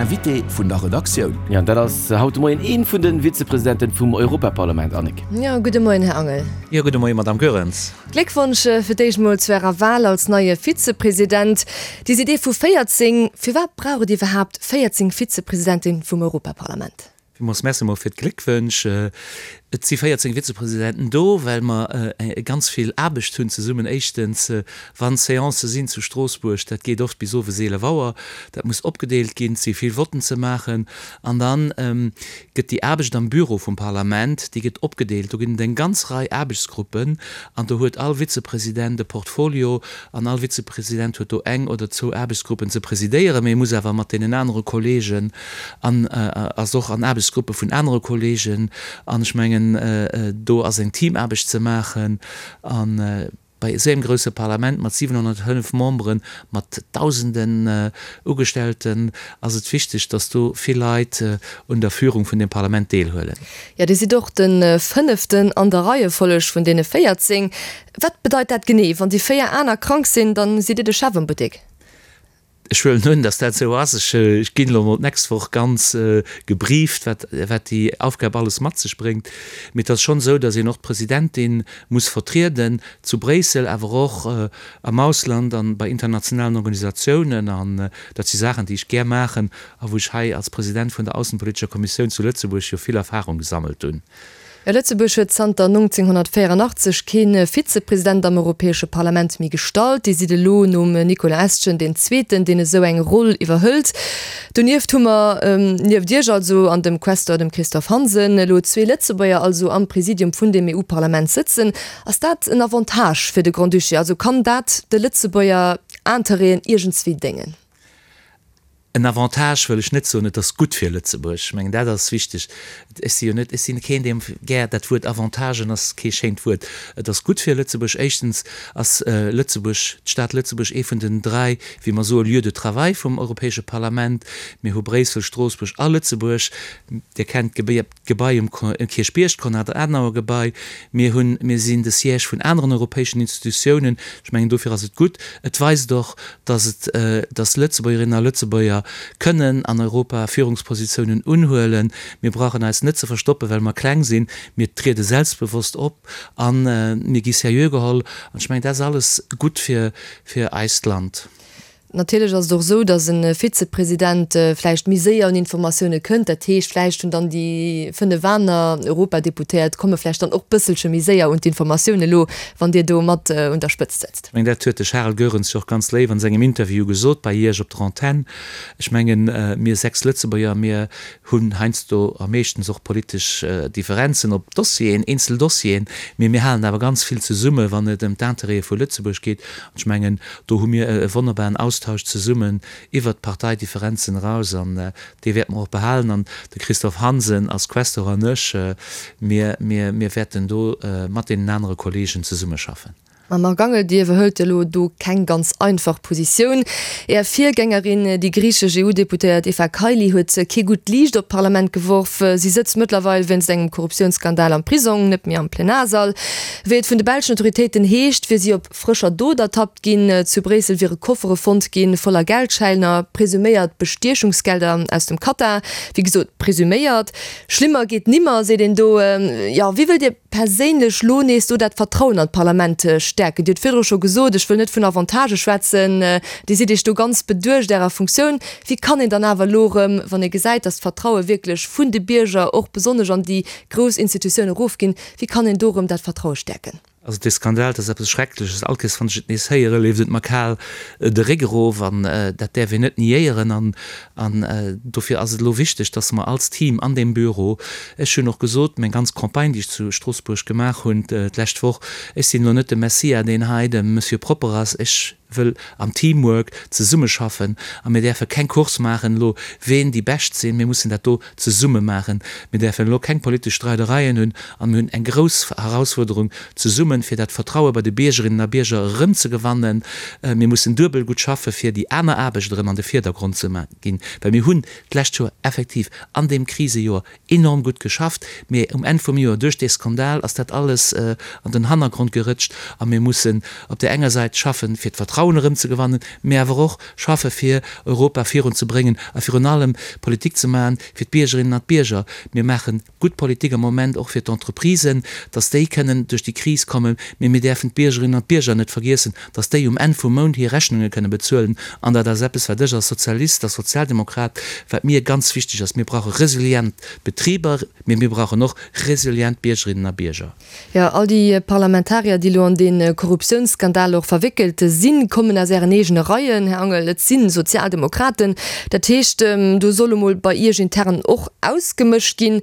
Invité vun der Redaktioun. Jo, an dat ass haut de Moien ee vun de Vizepresidenten vum Europaparlament. Annick. Jo, gudde Moien, Här Angel. Jo, gudde Moien, Madamm Goerens. Gléckwonsch fir d'éischt mol zu Ärer Wal als neie Vizepresident. Dir sidd ee vu 14. Firwat brauch et iwwerhaapt 14 Vizepresidentin vum Europaparlament? Villmools Merci mol fir d'Gléckwënsch. Et si 14 Vizepresidenten do, well mer ganz vill Aarbecht hunn zesummen. Éischtens, wann Seancë sinn zu Stroossbuerg, dat geet oft bis owes 11 Auer, dat muss opgedeelt ginn, et si vill Votten ze maachen. An da gëtt déi Aarbecht am Büro vum Parlament, déi gëtt opgedeelt. Do ginn et eng ganz Rei Aarbechtsgruppen an do huet all Vizepresident e Portfolio an all Vizepresident huet do eng oder zwou Aarbechtsgruppen ze presidéieren, mee e muss awer mat deenen anere Kollegen an ass och an Aarbechtsgruppe vun anere Kollegen an ech mengen, do ass eng Teamaarbecht ze maachen. A bei esou engem grouse Parlament mat 705 Memberen, mat Dausenden Ugestellten ass et wichteg, datt do vill Leit un der Führung vun deem Parlament deelhuelen. Jo, Dir sidd och de fënneften an der Reiefolleg vun deene 14. Wat bedeit dat genee? Wann déi véier aner krank sinn, dann sidd Dir de Chef am Buttek? Ech huelen un, dass dat esou ass. Ech ginn elo mol d'nächst Woch ganz gebrieft, wat wat déi Aufgab alles mat sech bréngt. Mee et ass schonn esou, dass een och d'Presidentin muss vertrieden, zu Bréissel, awer och am Ausland an bei internationalen Organisatiounen. An dat si Saachen, déi ech gär maachen a wou ech hei als President vun der aussenpolitescher Kommissioun zu Lëtzebuerg jo vill Erfahrung gesammelt hunn. Lëtzebuerg huet zanter 1984 kee Vizepresident am Europäesche Parlament méi gestallt. Dir sidd elo nom Nicolas Estgen deen zweeten, deen esou eng Roll iwwerhëlt. Donieft hu mer, nieft Iech also an dem Questeur, dem Christophe Hansen, elo zwee Lëtzebuerger also am Presidium vun dem EU-Parlament sëtzen. Ass dat en Avantage fir de Grand-Duché? Also kann dat de Lëtzebuerger Interêten iergendswéi déngen? En Avantage wëll ech net soen, et ass gutt fir Lëtzebuerg. Ech mengen, dat ass wichteg. Ech si jo net, ech sinn keen, deem gär dat Wuert Avantagen ass kee schéint Wuert. Et ass gutt fir Lëtzebuerg. Éischtens ass Lëtzebuerg, d'Stad Lëtzebuerg ee vun den dräi, wéi mer soen, Lieux de travail vum Europäesche Parlament. Mir hu Bréissel, Stroossbuerg a Lëtzebuerg. Dir kennt d'Gebai. D'Gebai um Kierchbierg, d'Konrad-Adenauer-Gebai. Mir hunn, mir sinn de Siège vun aneren europäeschen Institutiounen. Ech mengen, dofir ass et gutt. Et weist och, dass et, dass Lëtzebuergerinnen a Lëtzebuerger kënnen an Europa Führungspositiounen unhuelen. Mir brauchen eis net ze verstoppen, well mer kleng sinn. Mir triede selbstbewosst op a mir gi seriö geholl. An ech mengen, dat ass alles gutt fir, fir eist Land. Natierlech ass et och esou, datt e Vizepresident vläicht méi séier un Informatioune kënnt. Dat heescht, vläicht hunn dann déi 5 aner Europadeputéiert komme vläicht dann och bësselche méi séier un d'Informatioun elo, wann Dir do mat un der Spëtzt sëtzt. Ech mengen, dat huet de Charel Goerens jo och ganz léif an sengem Interview gesot bei Iech op der Antenn. Ech mengen, mir 6 Lëtzebuerger, mir hunn heiansdo a meeschtens och politesch Differenzen op Dossieren, eenzel Dossieren, mee mir halen awer ganz vill zesumme wann et ëm d'Intérêtë vu Lëtzebuerg geet. An ech mengen, do hu mir e wonnerbaren Austausch zesummen iwwert d'Parteidifferenzen eraus an dee wäerte mer och behalen. An de Christophe Hansen als Questeur an ech, mir, mir, mir wäerten do mat deenen anere Kollegen zesummeschaffen. Mme Marc Angel, Dir iwwerhëlt elo do keng ganz einfach Positioun. Är Virgängerin, déi griichesch EU-Deputéiert Eva Kaili, huet kee gutt Liicht op d'Parlament geworf. Si sëtzt mëttlerweil wéinst engem Korruptiounsskandal am Prisong, net méi am Plenarsall. Wéi et vun de belschen Autoritéiten heescht, wier si op frëscher Dot ertappt ginn. Zu Bréissel wiere Koffere fonnt ginn, voller Geldschäiner, presuméiert Bestiechungsgelder aus dem Katar. Wéi gesot, presuméiert. Schlimmer geet nimmer, seet een do. Jo, wéi wëllt Dir perséinlech lo nees do dat Vertrauen an d'Parlament stäerken? Dir hutt virdru scho gesot, ech wëll net vun Avantagë schwätzen, Dir sidd Iech do ganz beduecht Ärer Funktioun. Wéi kann een dann awer elo erëm, wann ee gesäit, datt d'Vertraue wierklech vun de Bierger och besonnesch an déi grouss Institutioun erofginn, wéi kann een do erëm dat Vertraue stäerken? Also dee Skandal, dat ass eppes Schreckleches. All Kéiers wann ech et nees héieren, leeft et mer kal de Réck erof an dat däerf een net niéieren. An an dofir ass et elo wichteg, dass mer als Team an deem Büro, ech hunn och gesot, meng ganz Campagne, déi ech zu Stroossbuerg gemaach hunn d'lescht Woch, ech sinn elo net de Messiah, deen hei de Monsieur Propper ass, ech wëll am Teamwork zesummeschaffen a mir däerfe keng Course maachen elo, ween déi Bescht sinn. Mir mussen dat do zesumme maachen. Mir däerfen elo keng politesch Streidereien hunn a mir hunn eng grouss Herausfuerderung zesummen, fir dat Vertraue bei de Biergerinnen a Bierger erëmzegewannen. Mir mussen duebel gutt schaffe fir déi aner Aarbecht erëm an de Virdergrond ze ginn, well mir hunn d'lescht Joer effektiv an deem Krisejoer enorm gutt geschafft, mee um Enn vum Joer, duerch dee Skandal, ass dat alles an den Hannergrond gerëtscht a mir mussen op där enger Säit schaffen, fir d'Vertrauen. Vertrauen erëmzegewannen, mee awer och schaffe fir Europa virunzebréngen a virun allem Politik ze maachen fir d'Biergerinnen an d'Bierger. Mir maache gutt Politik am Moment och fir d'Entreprisen, dass déi kënnen duerch déi Kris kommen, mee mir däerfen d'Biergerinnen an d'Bierger net vergiessen, dass déi um Enn vum Mount hir Rechnunge kënne bezuelen. An dat ass eppes, wat ech als Sozialist, als Sozialdemokrat, wat mir ganz wichteg ass. Mir brauche resilient Betriber, mee mir brauchen och resilient Biergerinnen a Bierger. Jo, all déi Parlamentarier, déi elo an dee Korruptiounsskandal och verwéckelt sinn, kommen aus Ären eegene Reien, Här Angel. Et si Sozialdemokraten. Dat heescht, do soll emol bei Iech intern och ausgemëscht ginn.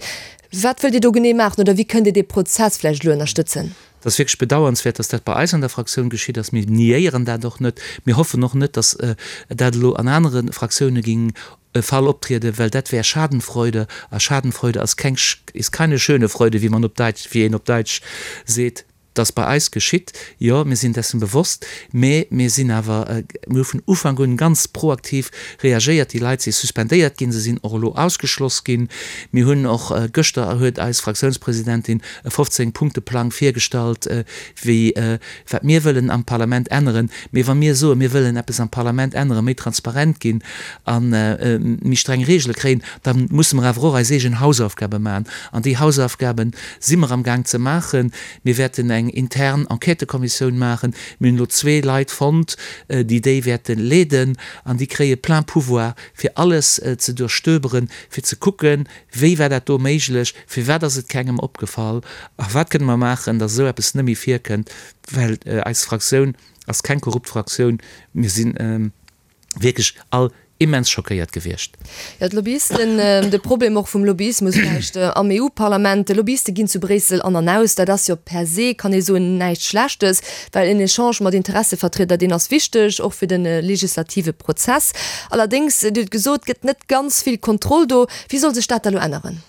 Wat wëllt Dir do genee maachen oder wéi kënnt Dir dee Prozess vläicht elo ënnerstëtzen? Et ass wierklech bedauernswäert, dass dat bei eis an der Fraktioun geschitt ass. Mir niéieren dat och net. Mir hoffen och net, dass dat elo an anere Fraktioune géing e Fall optrieden, well dat wär Schadenfreude, a Schadenfreude ass keng, ist keine schöne Freude, wéi man op Daitsch, wéi een op Daitsch seet. Dass bei eis geschitt, jo, mir sinn dessen bewosst, mä mir sinn awer, mir hu vun Ufank un ganz proaktiv reagéiert. Déi Leit si suspendéiert ginn, se sinn och elo ausgeschloss ginn. Mir hunn och, gëschter huet eis Fraktiounspresidentin e 15 Punkte-Plang virgestallt, wéi, wat mir wëllen am Parlament änneren. Mee wa mir soen, mir wëllen eppes am Parlament änneren, méi transparent ginn a méi streng Reegele kréien, da musse mer awer och eis eegen Hausaufgabe maachen. An déi Hausaufgabe si mer amgaang ze maachen. Mir wäerten eng intern Enquêtëkommissioun maachen. Mir hunn elo zwee Leit fonnt, déi déi wäerte leeden. An déi kréie plein pouvoir, fir alles ze duerchstöberen, fir ze kucken, Wéi war dat do méiglech? Firwat ass et kengem opgefall? A wat kënne mer maachen, datt esou eppes net méi virkënnt? Well eis Fraktioun ass keng korrupt Fraktioun. Mir si wierklech all immens schockéiert gewiescht. Jo, d'Lobbyisten, de Problem och vum Lobbyismus vläicht am EU-Parlament, Lobbyiste ginn zu Bréissel an an aus. Dat ass jo per se, kann ee soen, näischt Schlechtes, well en Echange mat Interessevertrieder, deen ass wichteg, och fir de legislative Prozess. Allerdéngs, Dir hutt gesot, gëtt net ganz vill Kontroll do. Wéi soll sech dat da lo änneren?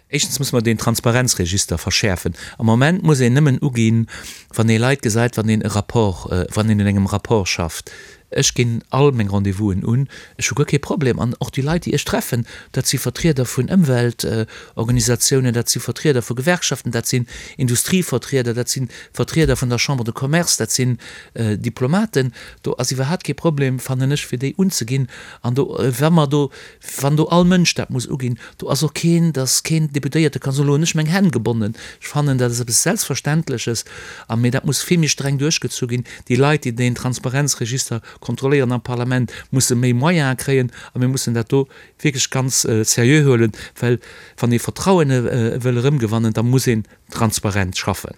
Éischtens muss mer deen Transparenzregister verschäerfen. Am Moment muss een nëmmen uginn, wann ee Leit gesäit, wann een e Rapport, wann een un engem Rapport schafft. Ech ginn all meng Rendez-vousen un. Ech hu guer kee Problem. An och déi Leit, déi ech treffen, dat si Vertrieder vun Ëmweltorganisatiounen, dat si Vertrieder vu Gewerkschaften, dat sinn Industrievertrieder, dat si Vertrieder vun der Chambre de Commerce, dat sinn Diplomaten. Do ass iwwerhaapt kee Problem, fannen ech, fir déi unzeginn. An do, wa mer do, wann do all Mënsch dat muss uginn, do ass och keen, dass keen Deputéierte ka soen, elo hunn ech meng Hänn gebonnen. Ech fannen, dat ass eppes Selbstverständleches. A mee dat muss vill méi streng duerchgezu ginn. Déi Leit, déi deen Transparenzregister kontrolléieren am Parlament, musse méi Moyene kréien. A mir mussen dat do wierklech ganz seriö huelen, well wann ee Vertrauen wëll erëmgewannen, da muss een transparent schaffen.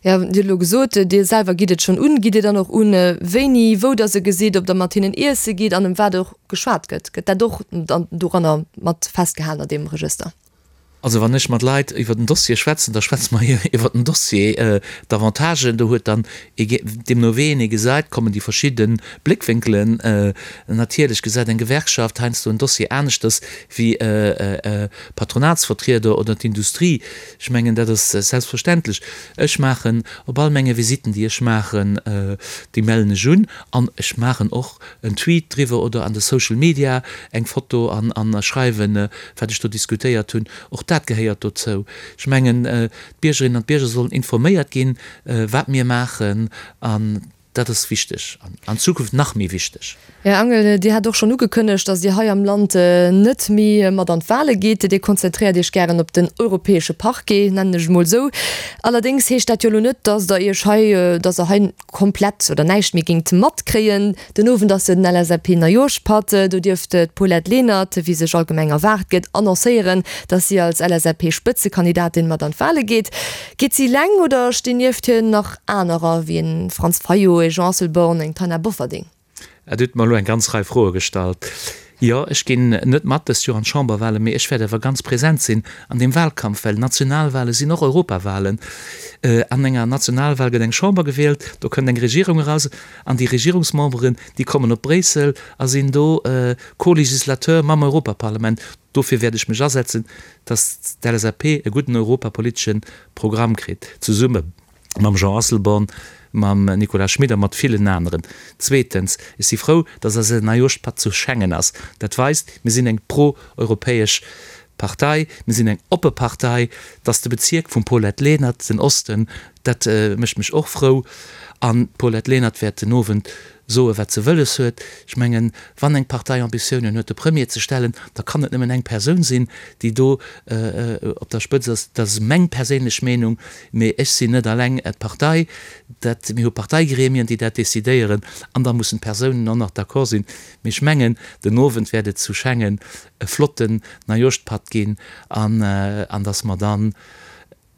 Jo, Dir hutt elo gesot, Dir selwer gitt et schonn un. Gitt Dir dann och un, wéini, wou Der se gesitt, ob Der mat hinnen iesse gitt an ëm wat och geschwat gëtt? Gëtt dat och dann doranner mat festgehalen an deem Regëster? Also wann ech mat Leit iwwer den Dossier schwätzen, da schwätze mer iwwer den Dossier, d'Avantagen. Do huet dann ee, deemno wéi een ee gesäit, kommen déi verschidde Bléckwénkelen. Natierlech gesäit eng Gewerkschaft heiansdo en Dossier aneschters wéi e Patronatsvertrieder oder d'Industrie. Ech mengen, dat ass selbstverständlech. Ech maachen op all menge Visitten, déi ech maachen, déi mellen ech un an ech maachen och en Tweet driwwer oder an de Social Media eng Foto an a schreiwen, wat ech do diskutéiert hunn. Och dat gehéiert dozou. Ech mengen, d'Biergerinnen an d'Bierger sollen informéiert ginn, wat mir maachen an Dat ass wichteg an an Zukunft nach méi wichteg. Här Angel, Dir hat och schonn ugekënnegt, datt Dir hei am Land net méi mat an d'Wale gitt. Dir konzentréiert Iech gären op den europäesche Parquet, nennen ech et mol esou. Allerdéngs heescht dat jo elo net, datt Der Iech hei, datt Der hei komplett oder näischt méi géingt matkréien. Den Owend ass jo den LSAP-Neijooschpatt. Do dierft d'Paulette Lenert, wéi sech allgemeng erwaart gëtt, annoncéieren, datt si als LSAP-Spëtzekandidatin mat an d'Wale geet. Geet si eleng oder stinn nieft hir nach anerer, wéi en Franz Fayot, e Jean Asselborn, eng Taina Bofferding? Dir hutt mer elo eng ganz Rei Froe gestallt. Jo, ech ginn net mat dëst Joer an d'Chamberwahlen, mee ech wäert awer ganz present sinn an deem Wahlkampf, well Nationalwahle sinn och Europawahlen. An enger Nationalwahl gëtt eng Chamber gewielt, do kënnt eng Regierung eraus an déi Regierungsmemberen, déi kommen op Bréissel a sinn do Co-Législateur mam Europaparlament. Dofir wäert ech mech asetzen, dass d'LSAP e gudden europapolitesche Programm kritt, zesumme mam Jean Asselborn, mam Nicolas Schmit a mat villen aneren. Zweetens, ech si frou, dass eise Neijooschpatt zu Schengen ass. Dat weist, mir sinn eng pro-europäesch Partei, mir sinn eng oppe Partei. Dass de Bezierk vum Paulette Lenert, den Osten, dat mécht mech och frou. An d'Paulette Lenert wäert den Owend. Soe wat se wëlles huet. Ech mengen, wann eng Partei Ambitiounen huet de Premier ze stellen, da kann et nëmmen eng Persoun sinn, déi do op der Spëtz ass. Dat ass meng perséinlech Meenung, mee ech sinn net alleng d'Partei. Dat, mir hu Parteigremien, déi dat decidéieren an da mussen d'Persounen och nach d'accord sinn. Mee ech mengen, den Owend wäert et zu Schengen e flotten Neijooschpatt ginn an an datt mer dann,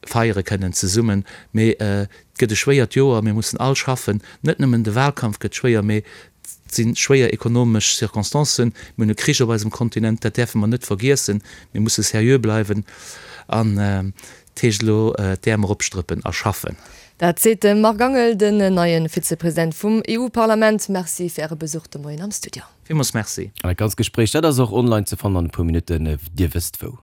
feiere kënnen zesummen. Mee et gëtt e schwéiert Joer, mir mussen all schaffen. Net nëmmen de Wahlkampf gëtt schwéier, mee et si schwéier ekonomesch Circonstancen. Mir hunn e Krich op eisem Kontinent, dat däerfe mer net vergiessen. Mir musse seriö bleiwen an et heescht elo d'Äerm eropstrëppen a schaffen. Dat seet de Marc Angel, den neie Vizepresident vum EU-Parlament. Merci fir Äre Besuch de Moien am Studio. Villmools Merci. An dat ganzt Gespréich, dat ass och online ze fannen an e puer Minutten. Dir wësst wou.